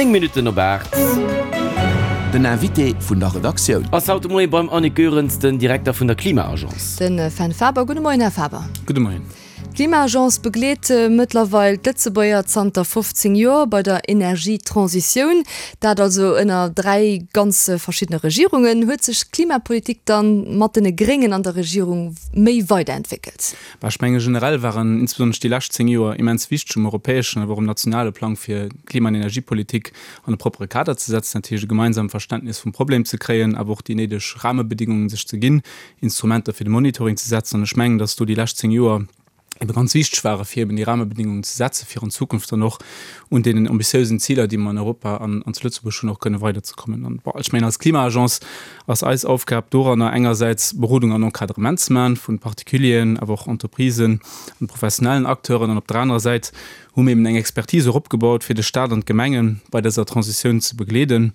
9 Minutten op 8. Den Invité vun der Redaktioun. Ass haut de Moie beim Annick Goerens, den Direkter vun der Klima-Agence. Den Fenn Faber. Gudde Moien, Här Faber. Gudde Moien. D'Klima-Agence begleet mëttlerweil d'Lëtzebuerger zanter 15 Joer bei der Energietransitioun. Dat also ënner 3 ganz verschiddene Regierungen. Huet sech d'Klimapolitik dann mat den Gréngen an der Regierung méi weiderentwéckelt? Bah, ech menge generell waren insbesonnesch déi lescht 10 Joer immens wichteg um europäeschen, awer och um nationale Plang, fir d'Klima an Energiepolitik an e proppere Kader ze setzen, dat heescht e gemeinsam Verständnis vum Problem ze kréien, awer och déi néideg Rahmebedingungen sech ze ginn, Instrumenter fir de Monitoring ze setzen. An ech mengen, dass do déi lescht 10 Joer ebe ganz wichteg ware fir eben déi Rahmebedingungen ze setzen, fir an Zukunft dann och un deenen ambitiösen Ziler, déi mer an Europa an zu Lëtzebuerg hunn, och kënne weiderzekommen. An, bon, ech mengen, als Klima-Agence ass eis Aufgab doranner engersäits Berodung an Encadrement ze maachen vu Particulieren, awer och Entreprisen an professionellen Acteuren, an op der anerer Säit hu mir eben eng Expertise och opgebaut, fir de Stat an d'Gemenge bei dëser Transitioun ze begleeden,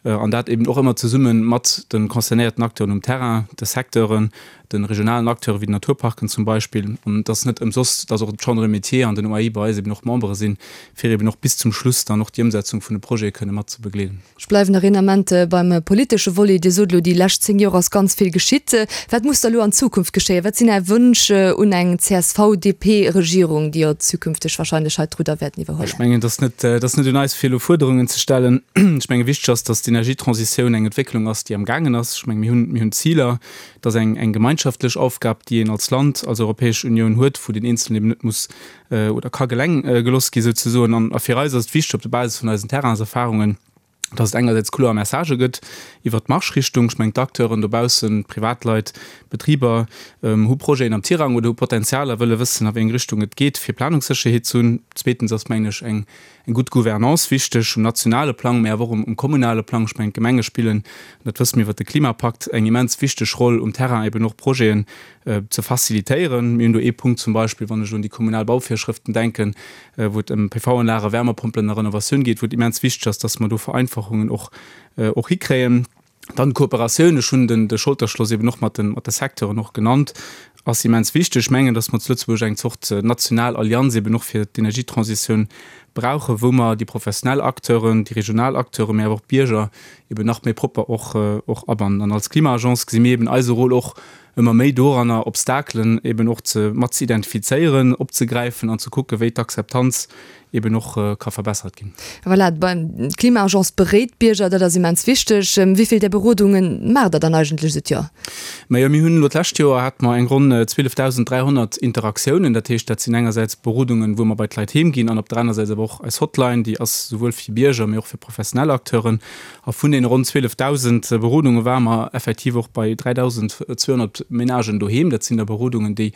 an dat eben och ëmmer zesumme mat de concernéierten Acteuren um Terrain, de Secteuren, de regionalen Acteure wéi den Naturparken zum Beispill. An et ass net ëmsoss, dass och d'Chambre de Métiers an den OAI bei eis eben och Membere sinn, fir eben och bis zum Schluss dann och déi Ëmsetzung vun de Projete kënne mat ze begleeden. Ech bleiwen nach een Ament beim politesche Volet. Dir sot elo, déi lescht 10 Joer ass ganz vill geschitt. Wat muss da elo an Zukunft geschéien? Wat sinn Är Wënsch un eng CSV-DP-Regierung, déi jo zukünfteg wahrscheinlech hei d'Rudder wäerten iwwerhuelen? Ech mengen, et ass net, et ass net un eis, fir elo Fuerderungen ze stellen. Ech menge wichteg ass, datt d'Energietransitioun eng Entwécklung ass, déi am gaangen ass. Ech menge mir hunn, mir hunn Ziler. Et ass eng, eng gemeinschaftlech Aufgab, déi een als Land, als Europäesch Unioun huet, wou deen Eenzelnen eben net muss oder ka geleng geloss gi souzesoen. An a fir eis ass et wichteg op der Basis vun eisen Terrainserfahrungen, dass et engersäits kloer Messagë gëtt iwwert d'Marschrichtung. Ech mengen d'Acteuren dobaussen, d'Privatleit, d'Betriber hu Projeten am Tirang oder hu Potenzial a wëlle wëssen a wéi eng Richtung et geet, fir Planungssécherheet ze hunn. Zweetens ass, mengen ech, eng gutt Gouvernance wichteg um nationale Plang, mä awer och um kommunale Plang. Ech mengen d'Gemenge spillen, dat wësse mir iwwert de Klimapakt, eng immens wichteg Roll um Terrain eben och Projeten ze facilitéieren. Mir hunn do ee Punkt zum Beispill, wann ech un déi kommunal Bauvirschrëften denken, wou et ëm PV-Anlagen, Wärmepompelen a Renovatioun geet, wou et immens wichteg ass, dass mer do Vereinfachungen och och hikréien. Dann d'Kooperatioun, ech hunn den de Scholterschloss eben och mat de mat de Secteuren och genannt, ass immens wichteg. Ech mengen, dass mer zu Lëtzebuerg eng Zort national Allianz eben och fir d'Energietransitioun brauchen, wou mer déi professionell Acteuren, déi regional Acteuren, mä awer och d'Bierger eben nach méi propper och och abannen. An als Klima-Agence gesi mir eben eise Rôle och ëmmer méi doranner, Obstakelen eben och ze mat ze identifizéieren, opzegräifen an ze kucken, wéi d'Akzeptanz eben och ka verbessert ginn. Voilà, d'Klima-Agence beréit d'Bierger, dat ass immens wichteg. Wéi vill där Berodunge maacht Der dann eigentlech esou d'Joer? Majo, mir hunn elo d'lescht Joer hate mer eng ronn 12.300 Interaktiounen. Dat heescht, dat sinn engersäits Berodungen, wou mer bei d'Leit heem ginn an op der aner Säit awer och eis Hotline, déi ass souwuel fir Bierger, mee och fir professionell Acteuren. A vun deene ronn 12.000 Berodunge ware mer effektiv och bei 3.200 Menagen doheem. Dat sinn da Berodungen, déi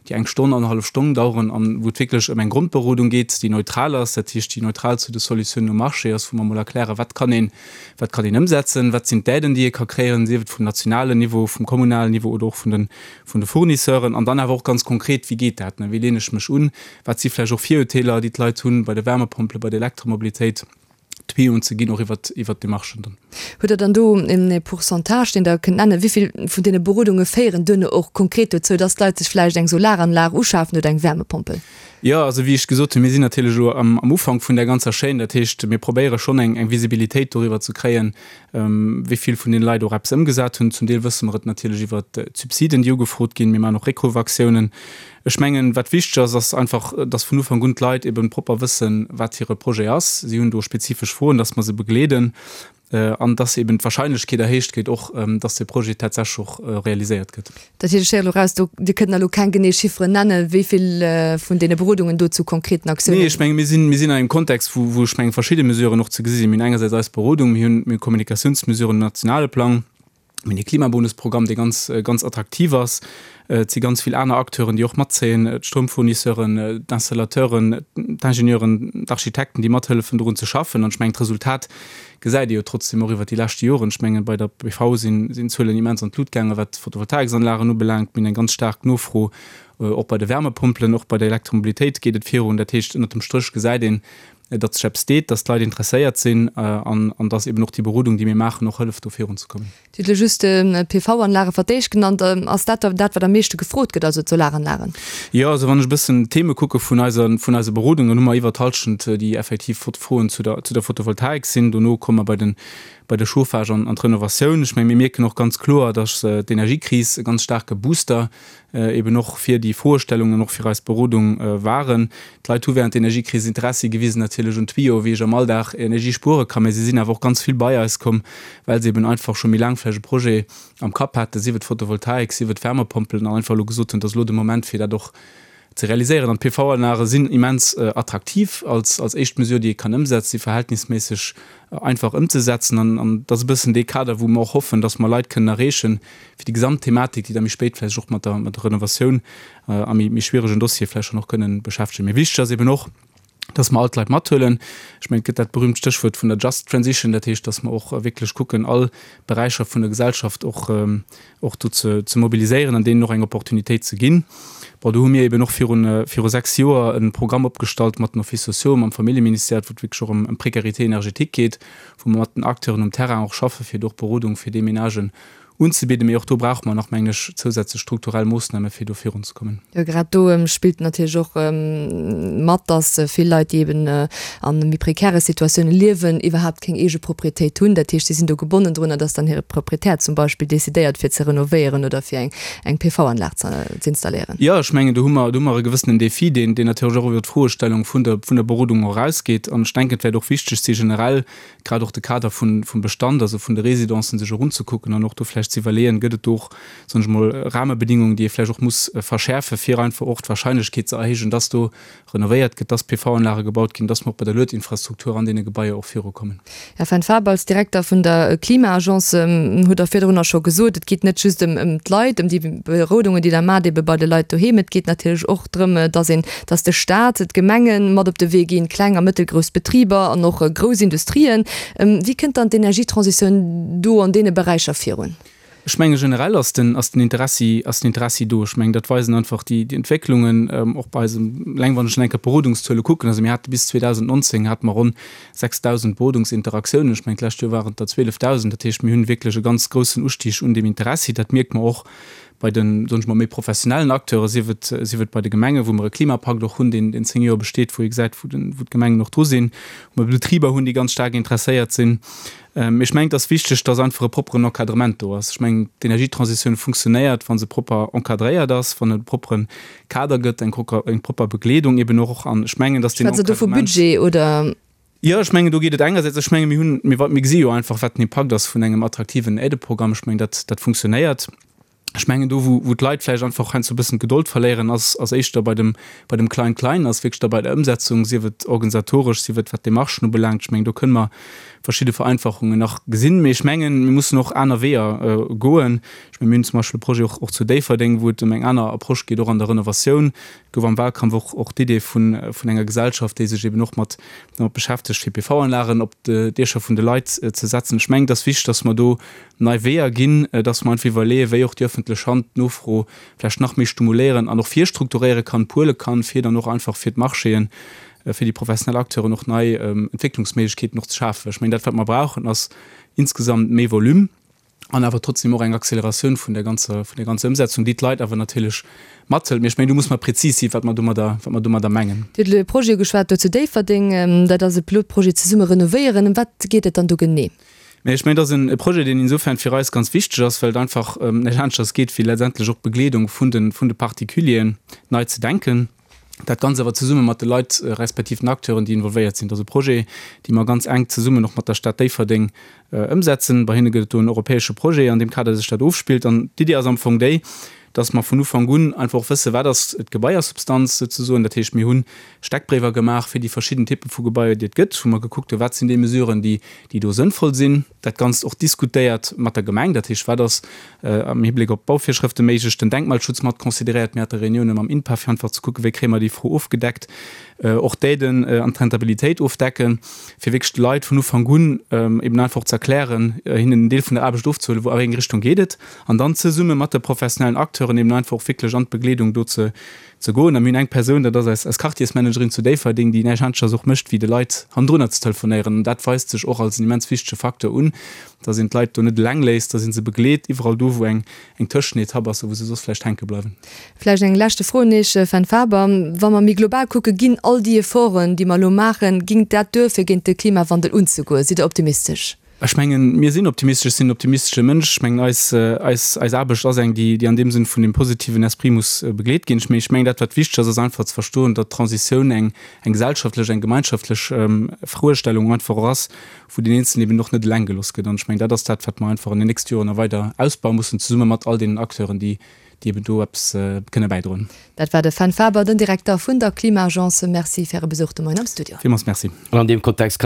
déi eng Stonn, annerhallef Stonn daueren an wou et wierklech ëm eng Grondberodung geet, déi neutral ass, dat heescht, déi neutral zu de Solutiounen um Marché ass, wou mer emol erklären, wat kann een, wat kann een ëmsetzen, wat sinn d'Aiden, déi ee ka kréien, sief et vum nationalen Niveau, vum kommunalen Niveau oder och vun de, vun de Fournisseuren. An dann awer och ganz konkret, wéi geet dat, wéi leen ech mech un, wat si vläicht och Virurteeler, déi d'Leit hunn bei de Wärmepompelen, bei der Elektromobilitéit. Tuyauxen ze ginn, och iwwert, iwwert d'Demarchen dann. Hutt Der dann do e Pourcentage, deen Der kënnt nennen, wéi vill vun deene Berodunge féieren duerno och konkret dozou, dass d'Leit sech vläicht eng Solaranlag uschafen oder eng Wärmepompel? Jo, also wéi ech gesot hunn, mir sinn natierlech elo am, am Ufank vun där ganzer Chaîne. Dat heescht, mir probéiere schonn eng, eng Visibilitéit doriwwer ze kréien, wéi vill vun deene Leit och eppes ëmgesat hunn. Zum Deel wësse mer et natierlech iwwert d'Subsiden, déi ugefrot ginn. Mir maachen och Réckrufaktiounen. Ech mengen, wat wichteg ass, ass einfach, dass vun Ufank un d'Leit eben propper wëssen, wat hire Projet ass. Si hunn do spezifesch Froen, dass mer se begleeden an dass eben d'Wahrscheinlechkeet erhéicht gétt och, dass dee Projet tatsächlech och realiséiert gëtt. Dat heescht, ech héieren elo raus, do, Dir kënnt elo keng genee Chifferen nennen, wéi vill vun deene Berodungen do zu konkreten Aktiounen. Nee, ech menge mir sinn, mir sinn an engem Kontext, wou, wou ech menge verschidde Mesuren och ze gesi sinn. Mir hunn engersäits eis Berodung, mir hunn, mir hu Kommunikatiounsmesuren um nationale Plang. Mir hunn ee Klimabonusprogramm, dee ganz, ganz attraktiv ass. Et si ganz vill aner Acteuren, déi och matzéien, d'Stroumfournisseuren, d'Installateuren, d'Ingenieuren, d'Architekten, déi mathëllefen dorun ze schaffen. An ech mengen, d'Resultat gesäit ee jo trotzdeem och iwwert déi leschte Joren. Ech mengen, bei der PV sinn d'Zuelen immens an d'Lut gaangen, wat d'Photovoltaiksanlagen ubelaangt. Mir hunn eng ganz staark Nofro. Och bei de Wärmepompelen, och bei der Elektromobilitéit geet et virun. Dat heescht, ënnert dem Stréch gesäit een, datt sech eppes deet, datt d'Leit interesséiert sinn an an datt eben och déi Berodung, déi mir maachen, och hëlleft, do virunzekommen. Dir hutt elo just d'PV-Anlage fir d'éischt genannt. Ass dat dat, wat am meeschte gefrot gëtt, also d'Solaranlagen? Jo, also wann ech e bëssen d'Theme kucke vun eiser, vun eise Berodung, dann hu mer iwwer d'Hallschent, déi effektiv Froen zu der, zu der Photovoltaik sinn. Dono komme mer bei den, bei de Chauffage an, an d'Renovatioun. Ech menge mir mierken och ganz kloer, datt d'Energiekris e ganz staarke Booster eben och fir déi Froestellungen an och fir eis Berodung waren. D'Leit hu während der Energiekris Interessi gewisen natierlech un Tuyau, wéi ech am Alldag Energie spuere kann, mä si sinn awer och ganz vill bei eis komm, well se eben einfach scho méi laang vläicht e Projet am Kapp haten, sief et Photovoltaik, sief et Wärmepompelen, an einfach elo gesot hunn, et ass elo de Moment fir dat och ze realiséieren. An d'PV-Anlage sinn immens attraktiv als als éischt Mesure, déi ee kann ëmsetzen, si verhältnisméisseg einfach ëmzesetzen an an dat ass e bëssen dee Kader, wou mer och hoffen, dass mer Leit kënnen erreechen, fir déi gesamt Thematik, déi da méi spéit vläicht och mat der mat der Renovatioun a méi méi schwieregen Dossiere vläicht schonn och kënnen beschäftegen. Mee wichteg ass eben och, dass mer all d'Leit mathuelen. Ech mengen, et gëtt dat berühmt Stéchwuert vun der Just Transition, dat heescht, dass mer och wierklech kucken, all Beräicher vun der Gesellschaft och och do ze ze mobiliséieren an deenen och eng Opportunitéit ze ginn. Bon, do hu mir eben och virun viru 6 Joer e Programm opgestallt mat den Offices sociaux, mam Familljeministère, wou et wierklech och ëm ëm Précarité énergétique geet, wou mer mat den Acteuren um Terrain och schaffe fir do och Berodung fir déi Ménagen unzebidden. Mee och do brauche mer nach, mengen ech, zousätzlech strukturell Moossname fir do virunzekommen. Jo, grad do spillt natierlech och mat, dass vill Leit, déi eben a méi prekäre Situatioune liewen, iwwerhaapt keng eege Proprietéit hunn. Dat heescht, si sinn do gebonnen drunner, dass dann hire Proprietär zum Beispill decidéiert, fir ze renovéieren oder fir eng PV-Anlag z'installéieren. Jo, ech mengen, do hu mer, do hu mer e gewëssenen Defi, deen, deen natierlech och iwwer d'Froestellung vun der, vun der Berodung och erausgeet. An ech denken, et wäert och wichteg si generell, grad och de Kader vun, vum Bestand, also vun de Résidencen sech och unzekucken an och do vläicht ze iwwerleeën, gëtt et do och, soen ech emol, Rahmebedingungen, déi ee vläicht och muss verschäerfen, fir einfach och d'Wahrscheinlechkeet ze erhéijen, dass do renovéiert gëtt, dass PV-Anlage gebaut ginn, dass mer och bei der Luedinfrastruktur an deene Gebaier och virukommen. Här Fenn Faber, als Direkter vun der Klima-Agence hutt Der virdrunner scho gesot, et geet net just ëm d'Leit, ëm déi Berodungen, déi Der maacht, ebe bei de Leit doheem. Et geet natierlech och drëm, dass een, dass de Staat, d'Gemenge mat op de Wee ginn, kleng a mëttelgrouss Betriber an och grouss Industrien. Wéi kënnt dann d'Energietransitioun do an deene Beräicher virun? Ech menge generell ass den, ass den Interessi, ass den Interessi do. Ech mengen, dat weisen einfach déi, déi Entwécklungen och bei eisem, eleng wann ech eng Kéier d'Berodungszuele kucken, also mir hate bis 2019 hate mer ronn 6.000 Berodungsinteraktiounen, ech mengen d'lescht Joer waren et der 12.000. Dat heescht, mir hunn wierklech e ganz groussen Ustig un deem Interessi. Dat mierke mer och bei den, soen ech mol, méi professionellen Acteuren, sief et, sief et bei de Gemengen, wou mer e Klimapakt och hunn, deen, deen 10 Joer besteet, wou ee gesäit, wou den, wou d'Gemengen och dru sinn, wou mer Betriber hunn, déi ganz staark interesséiert sinn. Ech mengen, et ass wichteg, dass einfach e propperen Encadrement do ass. Ech mengen, d'Energietransitioun funktionéiert, wa se propper encadréiert ass, wann et e proppere Kader gëtt, eng eng propper Begleedung eben och. An ech mengen, dass deen Schwätzt Der do vu Budget oder? Jo, ech mengen, do geet et engersäits, ech menge mir hunn, mir mir gesi jo einfach, wat den Impakt ass vun engem attraktiven Aideprogramm. Ech mengen, dat dat funktionéiert. Ech mengen, do wou wou d'Leit vläicht einfach heiansdo e bëssen d'Gedold verléieren, ass ass éischter bei dem bei dem Klein-Klein, ass wierklech da bei der Ëmsetzung, sief et organisatoresch, sief et wat d'Demarchen ubelaangt. Ech mengen, do kënne mer verschidde Vereinfachungen nach gesinn. Mee ech mengen, mir mussen och aner Weeër goen. Ech mengen, mir hunn zum Beispill e Projet och och zu Déifferdeng, wou et ëm eng aner Approche geet, och an der Renovatioun. Et gouf am Wahlkampf och och d'Idee vun vun enger Gesellschaft, déi sech eben och mat domat beschäftegt, fir PV-Anlagen op d'Diecher vun de Leit ze setzen. Ech mengen, et ass wichteg, dass mer do nei Weeër ginn, dass mer einfach iwwerleeën, wéi och déi öffentlech Hand d'Nofro vläicht nach méi stumuléieren an och virstrukturéiere kann, puele kann, fir dann och einfach fir d'Marchéen, fir déi professionell Acteuren och nei Entwécklungsméiglechkeeten och ze schafen. Ech mengen, dat wat mer brauchen, ass insgesamt méi Volume an awer trotzdem och eng Acceleratioun vun der ganzer, vun der ganzer Ëmsetzung, déi d'Leit awer natierlech mathëlt. Mee ech mengen, do muss mer prezis sinn, wat mer domadder, wat mer domadder mengen. Dir hutt elo e Projet ugeschwat do zu Déifferdeng. Dat ass e Pilotprojet Zesumme renovéieren. Ëm wat geet et dann do genee? Mä ech mengen, et ass e Projet, deen insofern fir eis ganz wichteg ass, well et einfach ëm näischt aneschters geet, wéi letztendlech och d'Begleedung vun de, vun de Particulieren nei ze denken. Dat Ganzt awer zesumme mat de Leit respektiv den Acteuren, déi involvéiert sinn. Et ass e Projet, dee mer ganz enk zesummen och mat der Stad Déifferdeng ëmsetzen. Bei hinne gëtt et do en europäesche Projet, an deem Kader sech dat ofspillt. An d'Iddi ass am Fong déi, dass mer vun Ufank un einfach och wëssen, wat ass d'Gebaiersubstanz souzesoen. Dat heescht, mir hunn Steckbréiwer gemaach fir déi verschidden Typpe vu Gebaier, déi et gëtt, wou mer gekuckt hunn, wat sinn déi Mesuren, déi, déi do sënnvoll sinn. Dat Ganzt och diskutéiert mat der Gemeng, dat heescht, wat ass am Hibléck op d'Bauvirschrëfte méiglech, den Denkmalschutz mat consideréiert. Mir hate Reunioune mam INPA, fir einfach ze kucken, wéi kréie mer déi Fro ofgedeckt, och d'Aiden an d'Rentabilitéit ofdecken, fir wierklech de Leit vun Ufank un eben einfach och ze erklären, hinnen en Deel vun der Aarbecht ofzehuelen, wou a wéi eng Richtung geet et, an dann zesumme mat de professionellen Acteuren. Acteuren eben einfach och wierklech an d'Begleedung do ze ze goen. A mir hunn eng Persoun, dat ass eis eis Quartiersmanagerin zu Déifferdeng, déi näischt aneschters och mécht, wéi de Leit hannendrunner ze telefonéieren. An dat weist sech och als en immens wichtege Facteur un, dass een d'Leit do net eleng léisst, dass ee se begleet iwwerall do, wou eng eng Tëschenetapp ass a wou se soss vläicht hänke bleiwen. Vläicht eng leschte Fro un Iech, Fenn Faber. Wa mer méi global kucken, ginn all déi Efforten, déi mer elo maachen, ging dat duer, fir géint de Klimawandel unzegoen? Sidd Der optimistesch? Ech mengen, mir sinn optimistesch. Ech sinn en optimistesche Mënsch. Ech mengen, eis, eis, eis Aarbecht ass eng, déi, déi an deem Sënn vun dem positiven Esprit muss begleet ginn. Mee ech mengen, dat, wat wichteg ass, ass einfach ze verstoen, datt d'Transitioun eng, eng gesellschaftlech, eng gemeinschaftlech Froestellung einfach och ass, wou deen Eenzelnen eben och net eleng gelooss gëtt. An ech mengen, dat ass dat, wat mer einfach an den nächste Joren nach weider ausbaue mussen, zesumme mat all deenen Acteuren, déi, déi eben do eppes kënne bäidroen. Dat war de Fenn Faber, den Direkter vun der Klima-Agence. Merci fir Äre Besuch de Moien am Studio. Villmools Merci. An an deem Kontext kann.